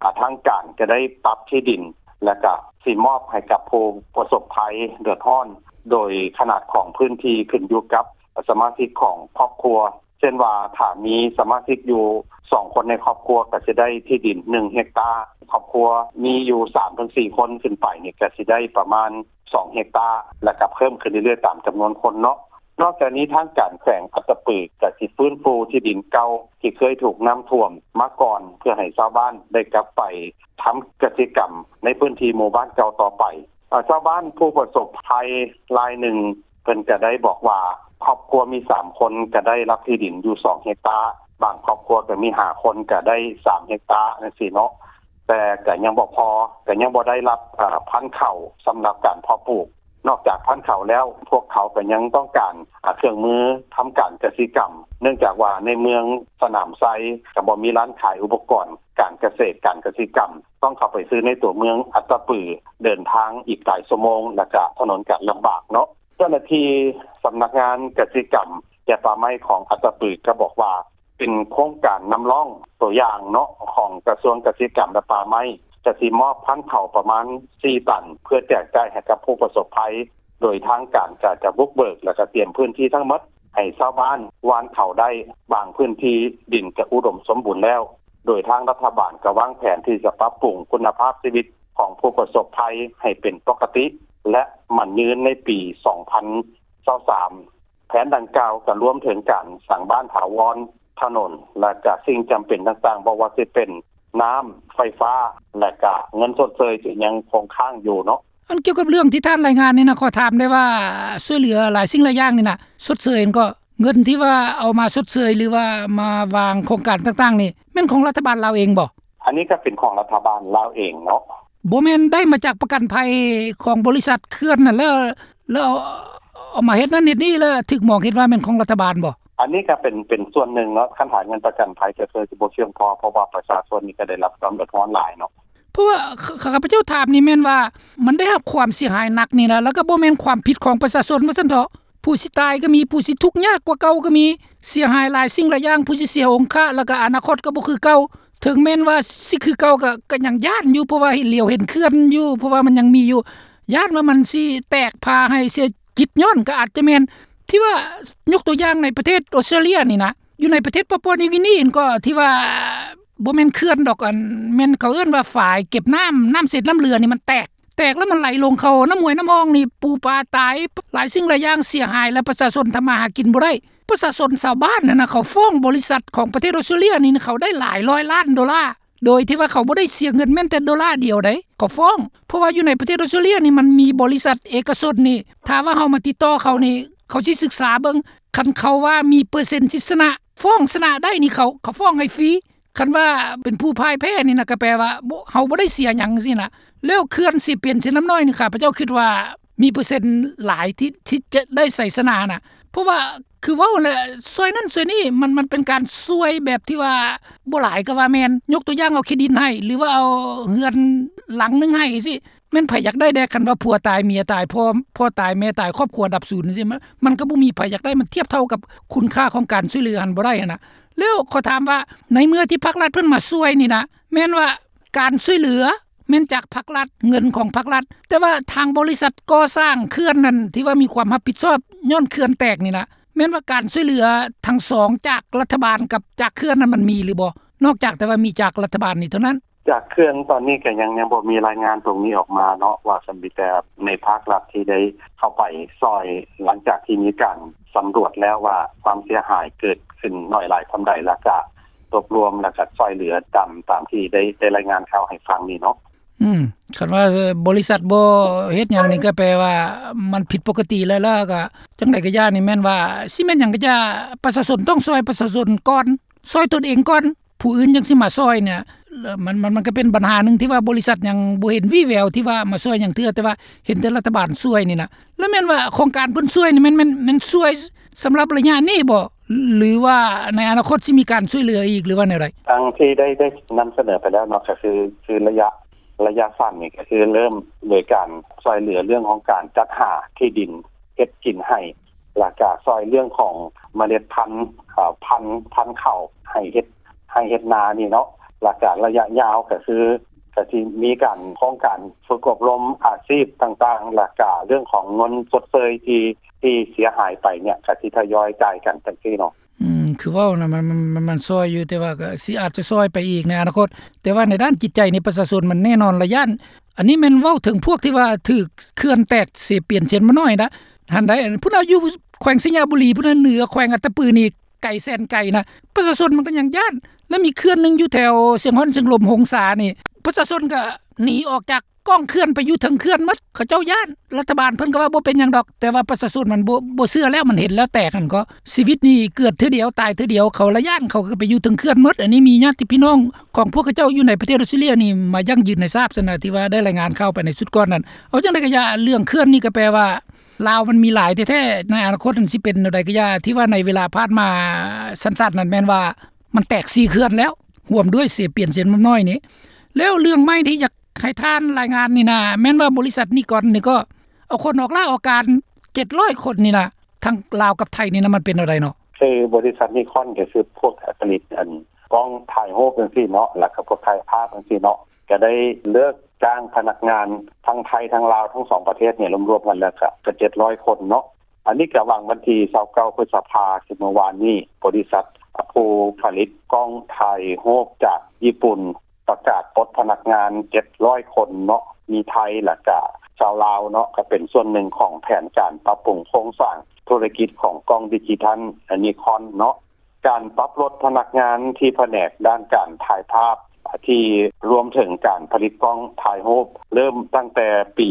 ອາ ທາງການຈະໄດ້ປັບທີ່ດິນ ແລະກະຊິມອບໃຫ້ກັບຜູ້ປະສົບໄພເດືອດຮ້ອນ ໂດຍຂະໜາດຂອງພື້ນທີ່ຂຶ້ນຢູ່ກັບສະມາຊິກຂອງຄອບຄົວ ເຊັ່ນວ່າ ຖ້າມີສະມາຊິກຢູ່ສອງຄົນໃນຄອບຄົວ ກໍຊິໄດ້ທີ່ດິນໜຶ່ງເຮັກຕາ, ຄອບຄົວມີຢູ່ສາມເຖິງສີ່ຄົນຂຶ້ນໄປນີ້ ກໍຊິໄດ້ປະມານສອງເຮັກຕາ ແລ້ວກໍເພີ່ມຂຶ້ນເລື້ອຍໆຕາມຈຳນວນຄົນເນາະ. ນອກຈາກນີ້ ທາງການແຂວງອັດຕະປືກໍຊິຟື້ນຟູທີ່ດິນເກົ່າທີ່ເຄີຍຖືກນ້ຳຖ້ວມມາກ່ອນ ເພື່ອໃຫ້ຊາວບ້ານໄດ້ກັບໄປທຳກະສິກຳໃນພື້ນທີ່ໝູ່ບ້ານເກົ່າຕໍ່ໄປ. ເອີ ຊາວບ້ານຜູ້ປະສົບໄພລາຍໜຶ່ງ ເພິ່ນກະໄດ້ບອກວ່າ ຄອບຄົວມີສາມຄົນກະໄດ້ຮັບທີ່ດິນຢູ່ສອງເຮັກຕາ, ບາງຄອບຄົວກະມີຫ້າຄົນກະໄດ້ສາມເຮັກຕາຈັ່ງຊີ້ເນາະ, ແຕ່ກະຍັງບໍ່ພໍ, ກະຍັງບໍ່ໄດ້ຮັບ ເອີ ພັນເຂົ້າສຳລັບການເພາະປູກ. ນອກຈາກພັນເຂົ້າແລ້ວ ພວກເຂົາກະຍັງຕ້ອງການ ອາ ເຄື່ອງມືທຳການກະສິກຳ, ເນື່ອງຈາກວ່າໃນເມືອງສະໜາມໄຊກະບໍ່ມີຮ້ານຂາຍອຸປະກອນການກະເສດການກະສິກຳ, ຕ້ອງເຂົ້າໄປຊື້ໃນຕົວເມືອງອັດຕະປື, ເດີນທາງອີກຫຼາຍຊົ່ວໂມງ ແລະກະຖະໜົນກະລຳບາກເນາະ. ເຈົ້າໜ້າທີ່ສຳນັກງານກະສິກຳ ແລະ ປ່າໄມ້ຂອງອັດຕະປືກະບອກວ່າ ເປັນໂຄງການນຳຮ່ອງຕົວຢ່າງເນາະ ຂອງກະຊວງກະສິກຳ ແລະ ປ່າໄມ້ ຈະຊິມອບພັນເຂົ້າປະມານສີ່ຕັນ ເພື່ອແຈກຈ່າຍໃຫ້ກັບຜູ້ປະສົບໄພ, ໂດຍທາງການກະຈະບຸກເບີກ ແລະ ກະຕຽມພື້ນທີ່ທັງໝົດ ໃຫ້ຊາວບ້ານຫວ່ານເຂົ້າໄດ້. ບາງພື້ນທີ່ດິນກະອຸດົມສົມບູນແລ້ວ, ໂດຍທາງລັດຖະບານກະວາງແຜນທີ່ຈະປັບປຸງຄຸນນະພາບຊີວິດຂອງຜູ້ປະສົບໄພໃຫ້ເປັນປົກກະຕິ ແລະ ໝັ້ນຍືນໃນປີສອງພັນຊາວສາມ. ແຜນດັ່ງກ່າວກະລວມເຖິງການສ້າງບ້ານຖາວອນ, ຖະໜົນ ແລະ ກະສິ່ງຈຳເປັນຕ່າງໆ ບໍ່ວ່າຊິເປັນນ້ຳ, ໄຟຟ້າ ແລະ ກະເງິນຊົດເຊີຍທີ່ຍັງຄົງຄ້າງຢູ່ເນາະ. ອັນກ່ຽວກັບເລື່ອງທີ່ທ່ານລາຍງານນີ້ນະ, ຂໍຖາມໄດ້ວ່າ ຊ່ວຍເຫຼືອຫຼາຍສິ່ງຫຼາຍຢ່າງນີ້ນະ, ຊົດເຊີຍຫັ້ນກໍ ເງິນທີ່ວ່າເອົາມາຊົດເຊີຍ ຫຼືວ່າມາວາງໂຄງການຕ່າງໆນີ້ ແມ່ນຂອງລັດຖະບານລາວເອງບໍ່? ອັນນີ້ກໍເປັນຂອງລັດຖະບານລາວເອງເນາະ. ບໍ່ແມ່ນໄດ້ມາຈາກປະກັນໄພຂອງບໍລິສັດເຂື່ອນນັ້ນ ແລ້ວ ແລ້ວເອົາ ເອົາມາເຮັດນັ້ນເຮັດນີ້ ແລ້ວຖືກມອງເຫັນວ່າແມ່ນຂອງລັດຖະບານບໍ່? ອັນນີ້ກໍເປັນ ເປັນສ່ວນໜຶ່ງເນາະ, ຄັນຫາເງິນປະກັນໄພກໍຄືຊິບໍ່ພຽງພໍ ເພາະວ່າປະຊາຊົນນີ້ກໍໄດ້ຮັບຄວາມເດືອດຮ້ອນຫຼາຍເນາະ. ເພາະວ່າ ຂ້າ ຂ້າພະເຈົ້າຖາມນີ້ແມ່ນວ່າ ມັນໄດ້ຮັບຄວາມເສຍຫາຍໜັກນີ້ນະ ແລ້ວກໍບໍ່ແມ່ນຄວາມຜິດຂອງປະຊາຊົນວ່າຊັ້ນເຖາະ. ຜູ້ຊິຕາຍກໍມີ, ຜູ້ຊິທຸກຍາກກວ່າເກົ່າກໍມີ, ເສຍຫາຍຫຼາຍສິ່ງຫຼາຍຢ່າງ, ຜູ້ຊິເສຍອົງຄະ ແລ້ວກໍອະນາຄົດກໍບໍ່ຄືເກົ່າ. ເຖິງແມ່ນວ່າຊິຄືເກົ່າກໍ ກໍຍັງຢ້ານຢູ່, ເພາະວ່າເຫັນ ຫຼຽວເຫັນເຂື່ອນຢູ່, ເພາະວ່າມັນຍັງມີຢູ່. ຢ້ານວ່າມັນຊິແຕກພາໃຫ້ເສຍກິດຍ້ອນກໍອາດຈະແມ່ນ. ທີ່ວ່າຍົກຕົວຢ່າງໃນປະເທດອອສເຕຣເລຍນີ້ນະ, ຢູ່ໃນປະເທດປາປົວນິວກິນີຫັ້ນກໍ ທີ່ວ່າບໍ່ແມ່ນເຂື່ອນດອກ, ອັນ ແມ່ນເຂົາເອີ້ນວ່າຝາຍເກັບນ້ຳ, ນ້ຳເສດນ້ຳເຫຼືອນີ້ມັນແຕກ, ແຕກແລ້ວມັນໄຫຼລົງເຂົ້ານ້ຳຫ້ວຍນ້ຳຮ່ອງນີ້, ປູປາຕາຍ, ຫຼາຍສິ່ງຫຼາຍຢ່າງເສຍຫາຍ ແລະ ປະຊາຊົນທຳມາຫາກິນບໍ່ໄດ້. ປະຊາຊົນຊາວບ້ານຫັ້ນນະ ເຂົາຟ້ອງບໍລິສັດຂອງປະເທດອອສເຕຣເລຍນີ້ ເຂົາໄດ້ຫຼາຍຮ້ອຍລ້ານໂດລາ, ໂດຍທີ່ວ່າເຂົາບໍ່ໄດ້ເສຍເງິນແມ່ນແຕ່ໂດລາດຽວໃດ, ເຂົາຟ້ອງ. ເພາະວ່າຢູ່ໃນປະເທດອອສເຕຣເລຍນີ້ ມັນມີບໍລິສັດເອກະຊົນນີ້, ຖ້າວ່າເຮົາມາຕິດຕໍ່ເຂົານີ້ ເຂົາຊິສຶກສາເບິ່ງ, ຄັນເຂົາວ່າມີເປີເຊັນຊິຊະນະ, ຟ້ອງຊະນະໄດ້ນີ້ ເຂົາ ເຂົາຟ້ອງໃຫ້ຟຣີ. ຄັນວ່າເປັນຜູ້ພ່າຍແພ້ນີ້ນະ ກໍແປວ່າ ບໍ່ ເຮົາບໍ່ໄດ້ເສຍຫຍັງຊີ້ນະ. ແລ້ວເຂື່ອນເຊປຽນເຊນ້ຳນ້ອຍນີ້ ຂ້າພະເຈົ້າຄິດວ່າມີເປີເຊັນຫຼາຍທີ່ ທີ່ຈະໄດ້ໄຊຊະນະນະ, ເພາະວ່າຄືເວົ້າແຫຼະ ຊ່ວຍນັ້ນຊ່ວຍນີ້ ມັນ ມັນເປັນການຊ່ວຍແບບທີ່ວ່າບໍ່ຫຼາຍກໍວ່າແມ່ນ. ຍົກຕົວຢ່າງເອົາທີ່ດິນໃຫ້ ຫຼືວ່າເອົາເຮືອນຫຼັງໜຶ່ງໃຫ້ຊີ້ ແມ່ນໃຜຢາກໄດ້ແດ່? ຄັນວ່າຜົວຕາຍເມຍຕາຍ ພໍ່ ພໍ່ຕາຍແມ່ຕາຍ ຄອບຄົວດັບສູນຈັ່ງຊີ້ ມັນ ມັນກໍບໍ່ມີໃຜຢາກໄດ້, ມັນທຽບເທົ່າກັບຄຸນຄ່າຂອງການຊ່ວຍເຫຼືອຫັ້ນບໍ່ໄດ້ຫັ້ນນະ. ແລ້ວຂໍຖາມວ່າ ໃນເມື່ອທີ່ພາກລັດເພິ່ນມາຊ່ວຍນີ້ນະ ແມ່ນວ່າການຊ່ວຍເຫຼືອແມ່ນຈາກພາກລັດ, ເງິນຂອງພາກລັດ, ແຕ່ວ່າທາງບໍລິສັດກໍ່ສ້າງເຂື່ອນນັ້ນ ທີ່ວ່າມີຄວາມຮັບຜິດຊອບຍ້ອນເຂື່ອນແຕກນີ້ນະ ແມ່ນວ່າການຊ່ວຍເຫຼືອທັງສອງ ຈາກລັດຖະບານກັບຈາກເຂື່ອນນັ້ນ ມັນມີຫຼືບໍ່? ນອກຈາກແຕ່ວ່າມີຈາກລັດຖະບານນີ້ເທົ່ານັ້ນ. ຈາກເຂື່ອນຕອນນີ້ກໍຍັງ ຍັງບໍ່ມີລາຍງານຕົງນີ້ອອກມາເນາະ ວ່າມີແຕ່ໃນພາກລັດທີ່ໄດ້ເຂົ້າໄປຊ່ອຍ ຫຼັງຈາກທີ່ມີການສຳຫຼວດແລ້ວວ່າຄວາມເສຍຫາຍເກີດຂຶ້ນໜ້ອຍຫຼາຍສ່ຳໃດ ແລ້ວກະລວບລວມ ແລ້ວກະຊ່ອຍເຫຼືອຕາມ ຕາມທີ່ໄດ້ ໄດ້ລາຍງານຂ່າວໃຫ້ຟັງນີ້ເນາະ. ອືມ ຄັນວ່າບໍລິສັດບໍ່ເຮັດຫຍັງນີ້ ກໍແປວ່າມັນຜິດປົກກະຕິແລ້ວ ແລ້ວກໍຈັ່ງໃດກໍຢ່ານີ້ ແມ່ນວ່າ ຊິແມ່ນຫຍັງກໍຢ່າ ປະຊາຊົນຕ້ອງຊ່ອຍປະຊາຊົນກ່ອນ, ຊ່ອຍຕົນເອງກ່ອນ ຜູ້ອື່ນຈັ່ງຊິມາຊ່ອຍນີ້. ແລ້ວມັນ ມັນ ມັນກໍເປັນບັນຫາໜຶ່ງທີ່ວ່າບໍລິສັດຍັງບໍ່ເຫັນວີ່ແວວທີ່ວ່າມາຊ່ອຍຫຍັງເທື່ອ ແຕ່ວ່າເຫັນແຕ່ລັດຖະບານຊ່ວຍນີ້ນະ. ແລ້ວແມ່ນວ່າໂຄງການເພິ່ນຊ່ວຍນີ້ ແມ່ນ ແມ່ນ ແມ່ນຊ່ວຍສຳລັບໄລຍະນີ້ບໍ່ ຫຼືວ່າໃນອະນາຄົດຊິມີການຊ່ວຍເຫຼືອອີກ ຫຼືວ່າແນວໃດ? ດັ່ງທີ່ໄດ້ ໄດ້ນຳສະເໜີໄປແລ້ວເນາະ ກໍຄື ຄືໄລຍະ ໄລຍະສັ້ນນີ້ ກໍຄືເລີ່ມໂດຍການຊ່ວຍເຫຼືອເລື່ອງຂອງການຈັດຫາທີ່ດິນເຮັດກິນໃຫ້ ແລ້ວກະຊ່ອຍເລື່ອງຂອງເມລັດພັນ ເອີ ພັນ ພັນເຂົ້າໃຫ້ເຮັດ ໃຫ້ເຮັດນານີ້ເນາະ. ແລ້ວກະໄລຍະຍາວກໍຄື ກໍຊິມີການ ໂຄງການຝຶກອົບຮົມອາຊີບຕ່າງໆ ແລ້ວກະເລື່ອງຂອງເງິນຊົດເຊີຍທີ່ ທີ່ເສຍຫາຍໄປເນຍ ກໍຊິທະຍອຍຈ່າຍກັນຈັ່ງຊີ້ເນາະ. ອືມ ຄືເວົ້ານະ ມັນ ມັນ ມັນ ມັນຊ່ອຍຢູ່ ແຕ່ວ່າກໍຊິ ອາດຈະຊ່ອຍໄປອີກໃນອະນາຄົດ. ແຕ່ວ່າໃນດ້ານຈິດໃຈນີ້ ປະຊາຊົນມັນແນ່ນອນລະຢ້ານ. ອັນນີ້ແມ່ນເວົ້າເຖິງພວກທີ່ວ່າຖືກເຂື່ອນແຕກເຊປຽນເຊນ້ຳນ້ອຍນະ ຫັ້ນໃດ໋. ພຸ້ນນະ ຢູ່ແຂວງໄຊຍະບູລີພຸ້ນນະ ເໜືອແຂວງອັດຕະປືນີ້ ໄກແສນໄກນະ ປະຊາຊົນມັນກໍຍັງຢ້ານ. ແລ້ວມີເຂື່ອນໜຶ່ງຢູ່ແຖວຊຽງຮ່ອນ ຊຽງລົມ ຫົງສານີ້ ປະຊາຊົນກໍໜີອອກຈາກກ້ອງເຂື່ອນໄປຢູ່ເທິງເຂື່ອນໝົດ ເຂົາເຈົ້າຢ້ານ. ລັດຖະບານເພິ່ນກໍວ່າບໍ່ເປັນຫຍັງດອກ ແຕ່ວ່າປະຊາຊົນມັນບໍ່ ບໍ່ເຊື່ອແລ້ວ ມັນເຫັນແລ້ວແຕກຫັ້ນກໍ. ຊີວິດນີ້ເກີດເທື່ອດຽວ ຕາຍເທື່ອດຽວ ເຂົາລະຢ້ານ ເຂົາກໍໄປຢູ່ເທິງເຂື່ອນໝົດ. ອັນນີ້ມີຍາດຕິພີ່ນ້ອງຂອງພວກເຂົາເຈົ້າຢູ່ໃນປະເທດອອສເຕຣເລຍນີ້ມາຢັ້ງຢືນໃຫ້ຊາບຊັ້ນນະ ທີ່ວ່າໄດ້ລາຍງານຂ່າວໄປໃນຊຸດກ່ອນນັ້ນ. ເອົາຈັ່ງໃດກໍຢ່າ ເລື່ອງເຂື່ອນນີ້ກໍແປວ່າ ລາວມັນມີຫຼາຍແທ້ໆ ໃນອະນາຄົດມັນຊິເປັນແນວໃດກໍຢ່າ ທີ່ວ່າໃນເວລາຜ່ານມາສັ້ນໆນັ້ນ ແມ່ນວ່າມັນແຕກສີ່ເຂື່ອນແລ້ວ ຮ່ວມດ້ວຍເຊປຽນເຊນ້ຳນ້ອຍນີ້. ແລ້ວເລື່ອງໃໝ່ທີ່ຢາກໃຫ້ທ່ານລາຍງານນີ້ນະ ແມ່ນວ່າບໍລິສັດນີຄອນນີ້ກໍເອົາຄົນອອກລາອອກການເຈັດຮ້ອຍຄົນນີ້ນະ ທັງລາວກັບໄທນີ້ນະ ມັນເປັນແນວໃດເນາະ? ຄືບໍລິສັດນີຄອນກໍຄືພວກຜະລິດ ອັນ ກ້ອງຖ່າຍຮູບຈັ່ງຊີ້ເນາະ ແລ້ວກໍພວກຖ່າຍພາບຈັ່ງຊີ້ເນາະ ກໍໄດ້ເລີກຈ້າງພະນັກງານທັງໄທທັງລາວ ທັງສອງປະເທດນີ້ລວມໆກັນແລ້ວກໍ ກໍເຈັດຮ້ອຍຄົນເນາະ. ອັນນີ້ກໍຫວ່າງວັນທີຊາວເກົ້າ ພຶດສະພາ ຄືເມື່ອວານນີ້ ບໍລິສັດຜູ້ຜະລິດກ້ອງຖ່າຍຮູບຈາກຍີ່ປຸ່ນ ປະກາດປົດພະນັກງານເຈັດຮ້ອຍຄົນເນາະ ມີໄທ ແລ້ວກະຊາວລາວເນາະ ກໍເປັນສ່ວນໜຶ່ງຂອງແຜນການປັບປຸງໂຄງສ້າງທຸລະກິດຂອງກ້ອງດິຈິທັນນິຄອນເນາະ. ການປັບລົດພະນັກງານທີ່ພະແນກດ້ານການຖ່າຍພາບ ທີ່ລວມເຖິງການຜະລິດກ້ອງຖ່າຍຮູບ ເລີ່ມຕັ້ງແຕ່ປີ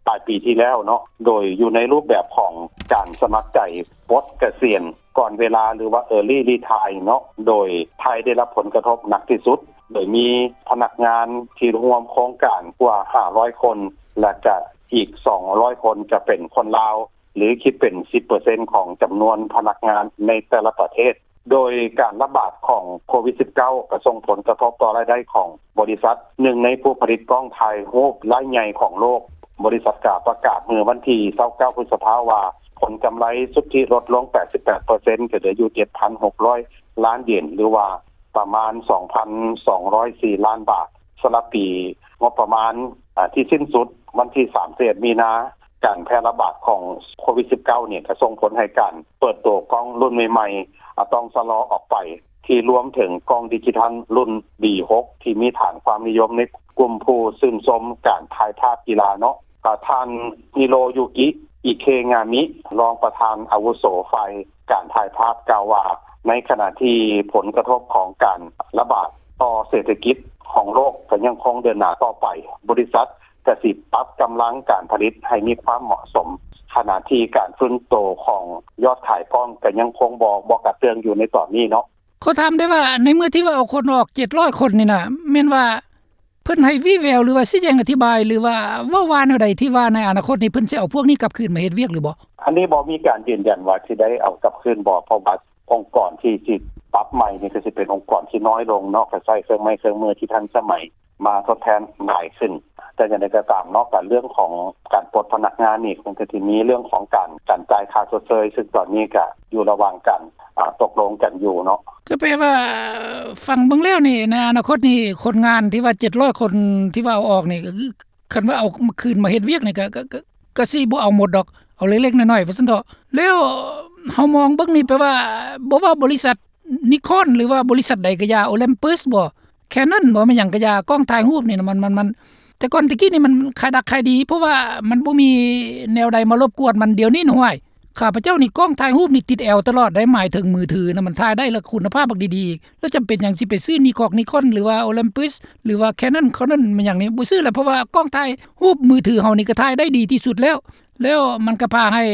ປາຍປີທີ່ແລ້ວເນາະ ໂດຍຢູ່ໃນຮູບແບບຂອງການສະໝັກໃຈປົດກະສຽນກ່ອນເວລາ ຫຼືວ່າ Early Retire ເນາະ ໂດຍໄທໄດ້ຮັບຜົນກະທົບໜັກທີ່ສຸດ ໂດຍມີພະນັກງານທີ່ຮ່ວມໂຄງການກວ່າຫ້າຮ້ອຍຄົນ ແລະ ກະອີກສອງຮ້ອຍຄົນຈະເປັນຄົນລາວ ຫຼື ຄິດເປັນສິບເປີເຊັນຂອງຈຳນວນພະນັກງານໃນແຕ່ລະປະເທດ. ໂດຍການລະບາດຂອງໂຄວິດສິບເກົ້າ ກໍສົ່ງຜົນກະທົບຕໍ່ລາຍໄດ້ຂອງບໍລິສັດ ໜຶ່ງໃນຜູ້ຜະລິດກ້ອງຖ່າຍຮູບລາຍໃຫຍ່ຂອງໂລກ. ບໍລິສັດກໍປະກາດເມື່ອວັນທີຊາວເກົ້າ ພຶດສະພາ ວ່າຜົນກຳໄລສຸດທິລົດລົງແປດສິບແປດເປີເຊັນ ກໍເຫຼືອຢູ່ເຈັດພັນຫົກຮ້ອຍລ້ານເຢນ ຫຼືວ່າປະມານສອງພັນສອງຮ້ອຍສີ່ລ້ານບາດ. ສຳລັບປີງົບປະມານ ອາ ທີ່ສິ້ນສຸດວັນທີສາມສິບເອັດ ມີນາ ການແຜ່ລະບາດຂອງໂຄວິດສິບເກົ້ານີ້ ກໍສົ່ງຜົນໃຫ້ການເປີດໂຕກ້ອງລຸ້ນໃໝ່ໆ ອາ ຕ້ອງຊະລໍອອກໄປ ທີ່ລວມເຖິງກ້ອງດິຈິທັນລຸ້ນ ບີຫົກ ທີ່ມີຖານຄວາມນິຍົມໃນກຸ່ມຜູ້ຊື່ນຊົມການຖ່າຍພາບກິລາເນາະ. ອາ ທ່ານ ຮິໂຣຢູກິ ອິເຄງາມິ ຮອງປະທານອາວຸໂສຝ່າຍການຖ່າຍພາບ ກ່າວວ່າ ໃນຂະນະທີ່ຜົນກະທົບຂອງການລະບາດຕໍ່ເສດຖະກິດຂອງໂລກກໍຍັງຄົງເດີນໜ້າຕໍ່ໄປ, ບໍລິສັດ ກະຊິປັບກຳລັງການຜະລິດໃຫ້ມີຄວາມເໝາະສົມ, ຂະນະທີ່ການຟື້ນໂຕຂອງຍອດຂາຍກ້ອງກະຍັງຄົງບໍ່ ບໍ່ກະເຕື້ອງຢູ່ໃນຕອນນີ້ເນາະ. ຂໍຖາມໄດ້ວ່າ ໃນເມື່ອທີ່ວ່າເອົາຄົນອອກເຈັດຮ້ອຍຄົນນີ້ນະ ແມ່ນວ່າເພິ່ນໃຫ້ວີແວວ ຫຼືວ່າຊີ້ແຈງອະທິບາຍ ຫຼືວ່າເວົ້າວ່າແນວໃດ ທີ່ວ່າໃນອະນາຄົດນີ້ເພິ່ນຊິເອົາພວກນີ້ກັບຄືນມາເຮັດວຽກຫຼືບໍ່? ອັນນີ້ບໍ່ມີການຢືນຢັນວ່າຊິໄດ້ເອົາກັບຄືນບໍ່ ເພາະວ່າອົງກອນທີ່ຊິປັບໃໝ່ນີ້ ກໍຊິເປັນອົງກອນທີ່ນ້ອຍລົງເນາະ ກໍໃຊ້ເຄື່ອງໄມ້ເຄື່ອງມືທີ່ທັນສະໄໝ ມາທົດແທນຫຼາຍຂຶ້ນ. ແຕ່ຢ່າງໃດກໍຕາມເນາະ ການເລື່ອງຂອງການປົດພະນັກງານນີ້ ມັນກໍຊິມີເລື່ອງຂອງການ ການຈ່າຍຄ່າຊົດເຊີຍ ຊຶ່ງຕອນນີ້ກໍຢູ່ລະຫວ່າງການ ອາ ຕົກລົງກັນຢູ່ເນາະ. ກໍແປວ່າ ຟັງເບິ່ງແລ້ວນີ້ ໃນອະນາຄົດນີ້ ຄົນງານທີ່ວ່າເຈັດຮ້ອຍຄົນທີ່ວ່າເອົາອອກນີ້ ກໍຄືຄັນວ່າເອົາມາຄືນມາເຮັດວຽກນີ້ ກໍ ກໍ ກໍ ກໍຊິບໍ່ເອົາໝົດດອກ ເອົາເລັກໆນ້ອຍໆ ວ່າຊັ້ນເຖາະ. ແລ້ວເຮົາມອງເບິ່ງນີ້ ແປວ່າ ບໍ່ວ່າບໍລິສັດ ນິຄອນ ຫຼືວ່າບໍລິສັດໃດກໍຢ່າ ໂອລິມປິສບໍ ແຄນນອນບໍ ແມ່ນຫຍັງກໍຢ່າ ກ້ອງຖ່າຍຮູບນີ້ນະ ມັນ ມັນ ມັນ ແຕ່ກ່ອນແຕ່ກີ້ນີ້ມັນຂາຍດັກຂາຍດີ ເພາະວ່າມັນບໍ່ມີແນວໃດມາລົບກວນມັນ. ດຽວນີ້ນະ ຫ້ວຍ ຂ້າພະເຈົ້ານີ້ ກ້ອງຖ່າຍຮູບນີ້ຕິດແອວຕະຫຼອດໄດ໋ ໝາຍເຖິງມືຖືນະ ມັນຖ່າຍໄດ້ ແລ້ວຄຸນນະພາບບັກດີໆ ແລ້ວຈຳເປັນຫຍັງຊິໄປຊື້ນິຄອນ ນິຄອນ ຫຼືວ່າໂອລິມປິສ ຫຼືວ່າແຄນນອນ ຄອນນອນ ແມ່ນຫຍັງນີ້ ບໍ່ຊື້ແລ້ວ ເພາະວ່າກ້ອງຖ່າຍຮູບມືຖືເຮົານີ້ກໍຖ່າຍໄດ້ດີທີ່ສຸດແລ້ວ. ແລ້ວມັນກໍພາໃຫ້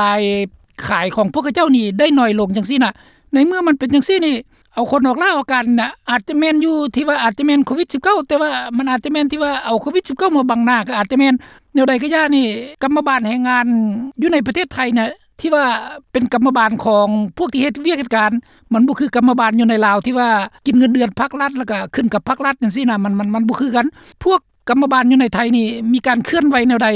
ລາຍຂາຍຂອງພວກເຂົາເຈົ້ານີ້ໄດ້ໜ້ອຍລົງຈັ່ງຊີ້ນະ. ໃນເມື່ອມັນເປັນຈັ່ງຊີ້ນີ້ ເອົາຄົນອອກລາອອກການນະ ອາດຈະແມ່ນຢູ່ທີ່ວ່າອາດຈະແມ່ນໂຄວິດສິບເກົ້າ ແຕ່ວ່າມັນອາດຈະແມ່ນທີ່ວ່າເອົາໂຄວິດສິບເກົ້າມາບັງໜ້າ ກໍອາດຈະແມ່ນ. ແນວໃດກໍຢ່ານີ້ ກຳມະບານແຮງງານຢູ່ໃນປະເທດໄທນະ ທີ່ວ່າເປັນກຳມະບານຂອງພວກທີ່ເຮັດວຽກເຮັດການ ມັນບໍ່ຄືກຳມະບານຢູ່ໃນລາວ ທີ່ວ່າກິນເງິນເດືອນພັກລັດ ແລ້ວກໍຂຶ້ນກັບພັກລັດຈັ່ງຊີ້ນະ ມັນ ມັນ ມັນບໍ່ຄືກັນ. ພວກ ກຳມະບານຢູ່ໃນໄທນີ້ ມີການເຄື່ອນໄຫວແນວໃດ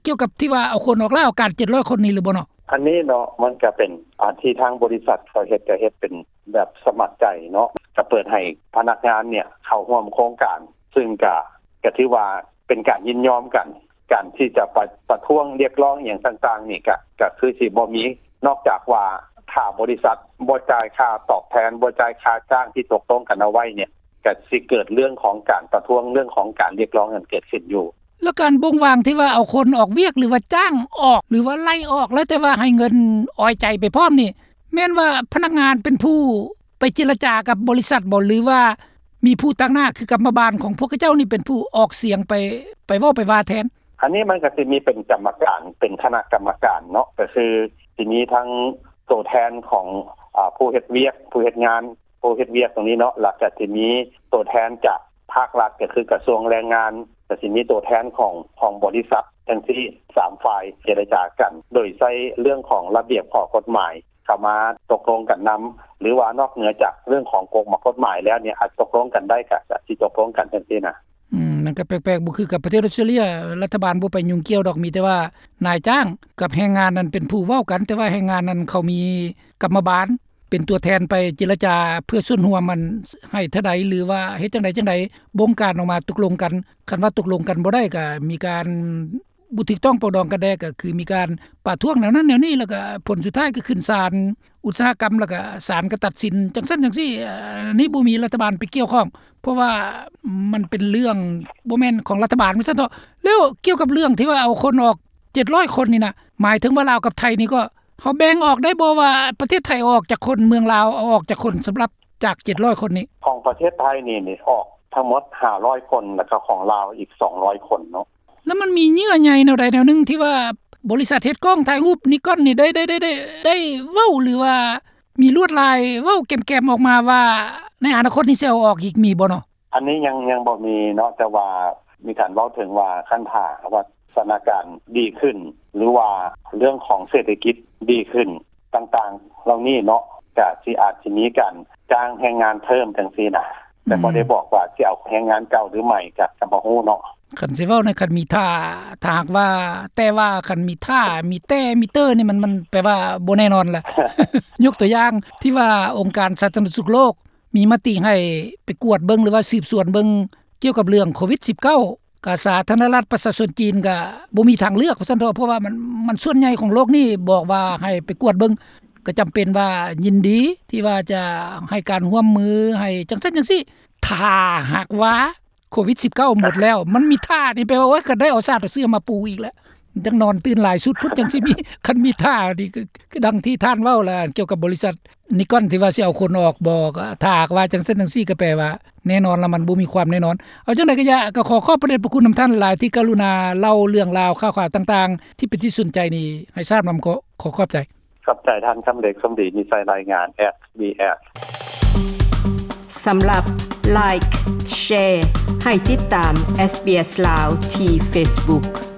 ກ່ຽວກັບທີ່ວ່າເອົາຄົນອອກລາອອກການເຈັດຮ້ອຍຄົນນີ້ຫຼືບໍ່ເນາະ? ອັນນີ້ເນາະ ມັນກະເປັນອັນທີ່ທາງບໍລິສັດເຂົາເຮັດ ກະເຮັດເປັນແບບສະໝັກໃຈເນາະ ກະເປີດໃຫ້ພະນັກງານເນຍເຂົ້າຮ່ວມໂຄງການ ຊຶ່ງກະ ກະຖືວ່າເປັນການຍິນຍອມກັນ. ການທີ່ຈະໄປປະທ້ວງຮຽກຮ້ອງອີ່ຫຍັງຕ່າງໆນີ້ ກະ ກະຄືຊິບໍ່ມີ ນອກຈາກວ່າຖ້າບໍລິສັດບໍ່ຈ່າຍຄ່າຕອບແທນ ບໍ່ຈ່າຍຄ່າຈ້າງທີ່ຕົກລົງກັນເອົາໄວ້ເນຍ ກະຊິເກີດເລື່ອງຂອງການປະທ້ວງ ເລື່ອງຂອງການຮຽກຮ້ອງນັ້ນເກີດຂຶ້ນຢູ່. ແລ້ວການບົ່ງວາງທີ່ວ່າເອົາຄົນອອກວຽກ ຫຼືວ່າຈ້າງອອກ ຫຼືວ່າໄລ່ອອກ ແລ້ວແຕ່ວ່າໃຫ້ເງິນອອຍໃຈໄປພ້ອມນີ້ ແມ່ນວ່າພະນັກງານເປັນຜູ້ໄປເຈລະຈາກັບບໍລິສັດບໍ ຫຼືວ່າມີຜູ້ຕາງໜ້າ ຄືກຳມະບານຂອງພວກເຂົາເຈົ້ານີ້ເປັນຜູ້ອອກສຽງໄປ ໄປເວົ້າໄປວ່າແທນ? ອັນນີ້ມັນກະຊິມີເປັນກຳມະການ ເປັນຄະນະກຳມະການເນາະ ກະຄືຊິມີທັງໂຕແທນຂອງ ອາ ຜູ້ເຮັດວຽກ ຜູ້ເຮັດງານ ຜູ້ເຮັດວຽກຕົງນີ້ເນາະ ແລ້ວກະຊິມີໂຕແທນຈາກພາກລັດ ກະຄືກະຊວງແຮງງານ ກະຊິມີໂຕແທນຂອງ ຂອງບໍລິສັດ ຈັ່ງຊີ້ ສາມຝ່າຍເຈລະຈາກັນ ໂດຍໃຊ້ເລື່ອງຂອງລະບຽບຂໍ້ກົດໝາຍເຂົ້າມາຕົກລົງກັນນຳ ຫຼືວ່ານອກເໜືອຈາກເລື່ອງຂອງກົດໝາຍແລ້ວເນຍ ອາດຕົກລົງກັນໄດ້ ກະ ກະຊິຕົກລົງກັນຈັ່ງຊີ້ນະ. ອືມ ມັນກະແປກໆ ບໍ່ຄືກັບປະເທດອອສເຕຣເລຍ ລັດຖະບານບໍ່ໄປຫຍຸ້ງກ່ຽວດອກ ມີແຕ່ວ່ານາຍຈ້າງກັບແຮງງານນັ້ນເປັນຜູ້ເວົ້າກັນ ແຕ່ວ່າແຮງງານນັ້ນເຂົາມີກຳມະບານ ເປັນຕົວແທນໄປເຈລະຈາເພື່ອສ່ວນຮ່ວມ ອັນໃຫ້ເທົ່າໃດ ຫຼືວ່າເຮັດຈັ່ງໃດຈັ່ງໃດ ບົງການອອກມາຕົກລົງກັນ. ຄັນວ່າຕົກລົງກັນບໍ່ໄດ້ ກະມີການ ບໍ່ຖືກຕ້ອງປອງດອງກັນແດ່ ກໍຄືມີການປະທ້ວງແນວນັ້ນແນວນີ້ ແລ້ວກໍຜົນສຸດທ້າຍກໍຂຶ້ນສານອຸດສາຫະກຳ ແລ້ວກໍສານກໍຕັດສິນຈັ່ງຊັ້ນຈັ່ງຊີ້. ອັນນີ້ບໍ່ມີລັດຖະບານໄປກ່ຽວຂ້ອງ ເພາະວ່າມັນເປັນເລື່ອງບໍ່ແມ່ນຂອງລັດຖະບານວ່າຊັ້ນເຖາະ. ແລ້ວກ່ຽວກັບເລື່ອງທີ່ວ່າເອົາຄົນອອກເຈັດຮ້ອຍຄົນນີ້ນະ ໝາຍເຖິງວ່າລາວກັບໄທນີ້ກໍ ເຮົາແບ່ງອອກໄດ້ບໍ່ວ່າປະເທດໄທເອົາອອກຈັກຄົນ ເມືອງລາວເອົາອອກຈັກຄົນ ສຳລັບຈາກເຈັດຮ້ອຍຄົນນີ້? ຂອງປະເທດໄທນີ້ ນີ້ອອກທັງໝົດຫ້າຮ້ອຍຄົນ ແລ້ວກໍຂອງລາວອີກສອງຮ້ອຍຄົນເນາະ. ແລ້ວມັນມີເຍື່ອໃຍແນວໃດແນວໜຶ່ງທີ່ວ່າບໍລິສັດເຮັດກ້ອງຖ່າຍຮູບນິກອນນີ້ໄດ້ ໄດ້ ໄດ້ ໄດ້ ໄດ້ເວົ້າ ຫຼືວ່າມີລວດລາຍເວົ້າແກມໆອອກມາວ່າ ໃນອະນາຄົດນີ້ຊິເອົາອອກອີກ ມີບໍ່ເນາະ? ອັນນີ້ຍັງ ຍັງບໍ່ມີເນາະ ແຕ່ວ່າມີການເວົ້າເຖິງວ່າ ຄັນຖ້າຫາກວ່າສະຖານະການດີຂຶ້ນ ຫຼືວ່າເລື່ອງຂອງເສດຖະກິດດີຂຶ້ນຕ່າງໆເຫຼົ່ານີ້ເນາະ ກະຊິອາດຊິມີການຈ້າງແຮງງານເພີ່ມຈັ່ງຊີ້ນະ ແຕ່ບໍ່ໄດ້ບອກວ່າຊິເອົາແຮງງານເກົ່າຫຼືໃໝ່ ກະ ກະບໍ່ຮູ້ເນາະ. ຄັນຊິເວົ້າໃນ ຄັນມີຖ້າ ຖ້າຫາກວ່າ ແຕ່ວ່າຄັນມີຖ້າ ມີແຕ່ ມີເຕີນີ້ ມັນ ມັນແປວ່າບໍ່ແນ່ນອນລະ. ຍົກຕົວຢ່າງທີ່ວ່າອົງການສາທາລະນະສຸກໂລກ ມີມະຕິໃຫ້ໄປກວດເບິ່ງ ຫຼືວ່າສືບສວນເບິ່ງກ່ຽວກັບເລື່ອງໂຄວິດສິບເກົ້າ ກະສາທາລະນະລັດປະຊາຊົນຈີນກະບໍ່ມີທາງເລືອກວ່າຊັ້ນເຖາະ ເພາະວ່າມັນ ມັນສ່ວນໃຫຍ່ຂອງໂລກນີ້ບອກວ່າໃຫ້ໄປກວດເບິ່ງ ກະຈຳເປັນວ່າຍິນດີທີ່ວ່າຈະໃຫ້ການຮ່ວມມື ໃຫ້ຈັ່ງຊັ້ນຈັ່ງຊີ້. ຖ້າຫາກວ່າໂຄວິດສິບເກົ້າໝົດແລ້ວ ມັນມີຖ້ານີ້ ແປວ່າ ໂອ້ຍ ກະໄດ້ເອົາຊາດເອົາເຊື້ອມາປູອີກແລ້ວ ຈັ່ງນອນຕື່ນຫຼາຍຊຸດພຸ້ນຈັ່ງຊິມີ ຄັນມີຖ້ານີ້ ຄື ຄືດັ່ງທີ່ທ່ານເວົ້າລະ ກ່ຽວກັບບໍລິສັດນິກອນທີ່ວ່າຊິເອົາຄົນອອກບໍ່ ກໍຖ້າຫາກວ່າຈັ່ງຊັ້ນຈັ່ງຊີ້ ກໍແປວ່າແນ່ນອນລະ ມັນບໍ່ມີຄວາມແນ່ນອນ. ເອົາຈັ່ງໃດກໍຢ່າ ກໍຂໍຂອບພະເດດພະຄຸນນຳທ່ານຫຼາຍ ທີ່ກະລຸນາເລົ່າເລື່ອງລາວຂ່າວໆຕ່າງໆ ທີ່ເປັນທີ່ສົນໃຈນີ້ໃຫ້ຊາບນຳ. ຂໍ ຂໍຂອບໃຈ. ຂອບໃຈທ່ານຄຳເລັກ ສົມດີ ມີໄຊ ລາຍງານ ເອັສບີເອັສ. ສຳລັບ Like Share ໃຫ້ຕິດຕາມ SBS ລາວ ທີ່ Facebook.